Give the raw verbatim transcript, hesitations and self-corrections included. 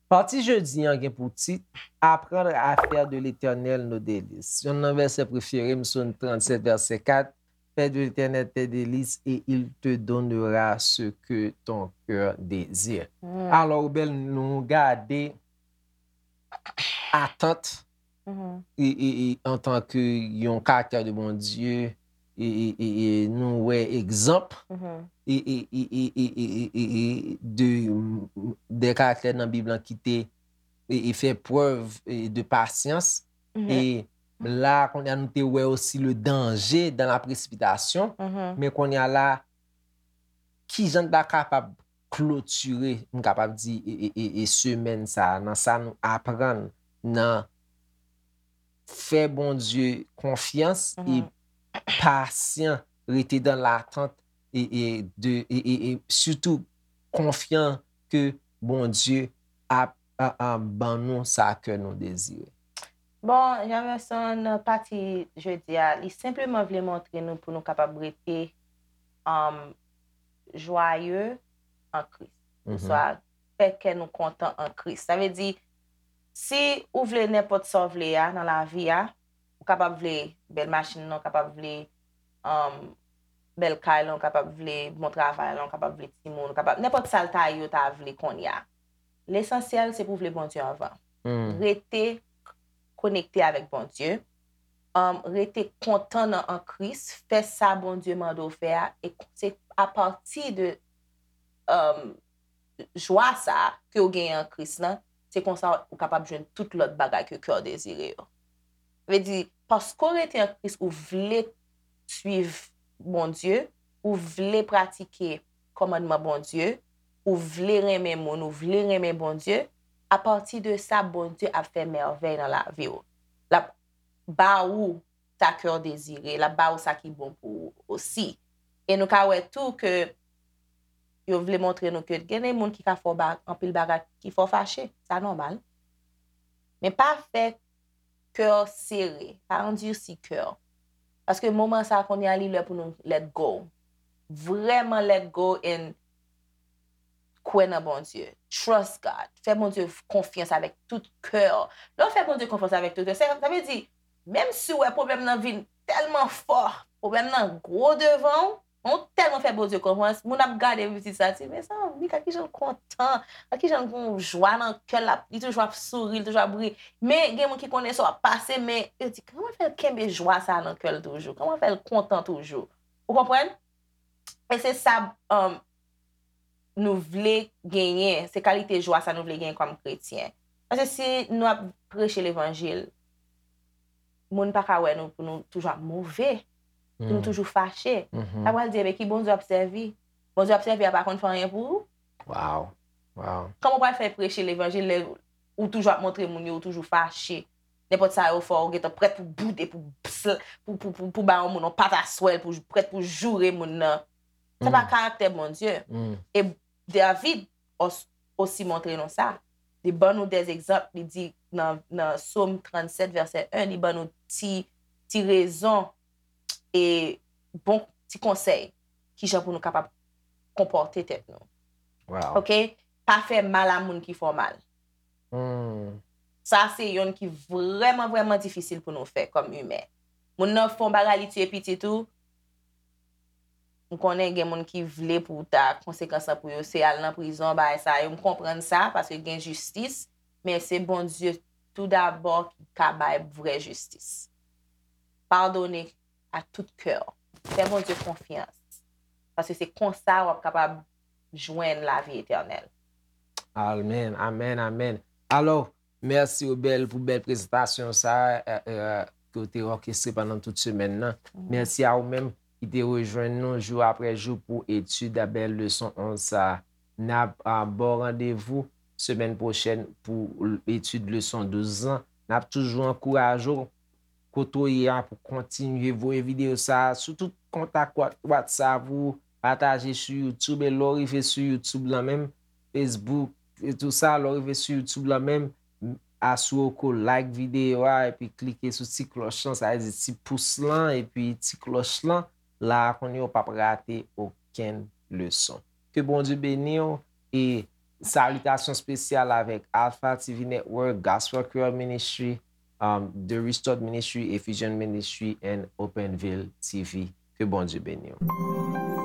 Pati jodi an gen pou tit Apprendre à faire de l'Éternel nos délices. Yonn nan vèsè prefere m, Sòm trannsèt, vèsè kat, Fais de l'Éternel tes délices et il te donnera ce que ton cœur désire. Alò, Obel, nou gade atant e, e, e, antanke yon karaktè de Bondye, e, e, e, e nou wè egzanp e, e, e, e, e, e, e, e, e de, de karaktè nan Bib lan ki te e, e fè prèv e, de pasyans. E la, kounye a, nou te wè osi le danger dans la précipitation. Men kounye a la, kijan n ta kapab klotire, m kapab di, e, e, e, e semèn sa a, nan sa nou aprann nan fè Bondye konfyans e pasyan, rete dans l'attente e, e, de, e, e, e sitou konfyan ke Bondye ap a, a, ban nou sa kè nou dezire. Bon, Jamerson, nan pati jodi a, li senpleman vle montre nou pou nou kapab rete um, joyeux en Christ. Oswa, fè kè nou kontan an Kris. Sa vle di, si ou vle nenpòt sa w vle a nan lavi a, ou kapab vle bèl machin nan, ou kapab vle um, bèl kay lan, ou kapab vle bon travay lan, ou kapab vle timoun, ou kapab nenpòt sa l ta ye ou ta vle kounye a. Lesansyèl, se pou w vle Bondye anvan. Rete konekte avèk Bondye. Um, rete kontan nan an Kris, fè sa Bondye mande w fè a, e se apati de um, jwa sa a ke w genyen an Kris lan, se konsa ou kapab jwenn tout lòt bagay ke kè w dezire yo. Vle di, paske w rete an Kris, ou vle suiv Bondye, ou vle pratike kòmandman Bondye, ou vle renmen moun, ou vle renmen Bondye, apati de sa, Bondye ap fè mèvèy nan lavi w. L ap ba ou sa kè w dezire, l ap ba ou sa ki bon pou ou osi. E nou ka wè tou ke yo vle montre nou ke gen de moun ki ka fè w ba, anpil bagay ki fè w fache. Sa nòmal. Men pa fè kè w sere, pa andisi kè w. Paske moman sa a kounye a li lè pou nou let go. Vrèman let go and kwè nan Bondye. Trust God. Fè Bondye konfyans avèk tout kè w. Lè w fè Bondye konfyans avèk tout kè w, sa vle di, menm si w wè pwoblèm nan vin tèlman fò, pwoblèm nan gwo devan w, men w tèlman fè Bondye konfyans, moun ap gade pitit sa, di, mezanmi, gad kijan l kontan, gad kijan l gen yon jwa nan kè l, li toujou ap souri, li toujou ap ri. Men gen moun ki konnen sa w ap pase, men yo di, kòman fè l kenbe jwa sa nan kè l toujou? Kòman fè l kontan toujou? Ou konprann? E se sa um, nou vle genyen, se kalite jwa sa nou vle genyen kòm kretyen. Paske si nou ap preche levanjil, moun pa ka wè nou pou nou toujou ap move, pou nou toujou fache. Sa pral di, ebyen, ki Bondye w ap sèvi? Bondye w ap sèvi a pa konn fè anyen pou ou? Wow. Wow. Kòman w pral fè preche levanjil lè ou toujou ap montre moun yo, ou toujou fache? Nenpòt sa yo fè w, ou gentan prèt pou boude, pou, pou, pou, pou, pou ba yon moun yon pataswèl, pou prèt pou joure moun nan. Sa pa karaktè Bondye. E David os- osi montre nou sa. Li ban nou de egzanp, li di nan, nan Sòm trannsèt, vèsè en, li ban nou ti, ti rezon e bon ti konsèy kijan pou nou kapab konpòte tèt nou. Wow. Oke? Pa fè mal a moun ki fè w mal. Hmm. Sa se yonn ki vrèman, vrèman difisil pou nou fè kòm imen. Moun nan fè yon bagay, li tiye pitit ou, m konnen gen moun ki vle pou ta konsekans lan pou yo, se al nan prizon, bagay sa yo. M konprann sa, paske gen jistis, men se Bondye toudabò ki ka bay vrè jistis. Padone a tout kè w. Fè Bondye konfyans. Paske se konsa w ap kapab jwenn lavi etènèl. Amèn, amèn, amèn. Alò, mèsi Obel pou bèl prezantasyon sa a, ke w te òkestre pandan tout semèn nan. Mèsi a ou menm ki te rejwenn nou jou apre jou pou etid a bèl leson onz sa a. N ap ba w randevou semèn pwochèn pou etid leson douz lan. N ap toujou ankouraje w kote w ye a pou kontinye voye videyo sa a sou tout kontak Wha- WhatsApp ou, pataje sou YouTube, e lè w rive sou YouTube lan menm, Facebook, e tou sa, lè w rive sou YouTube lan menm, m- asire w ke w like videyo a, epi klike sou ti klòch lan, sa vle di ti pous lan, epi ti klòch lan, la a kounye a w p ap rate okenn leson. Ke Bondye beni w, e salitasyon espesyal avèk Alpha T V Network, Gospel Creole Ministry, um, The Restored Ministry, Ephesian Ministry, and Openville T V. Ke Bondye beni w.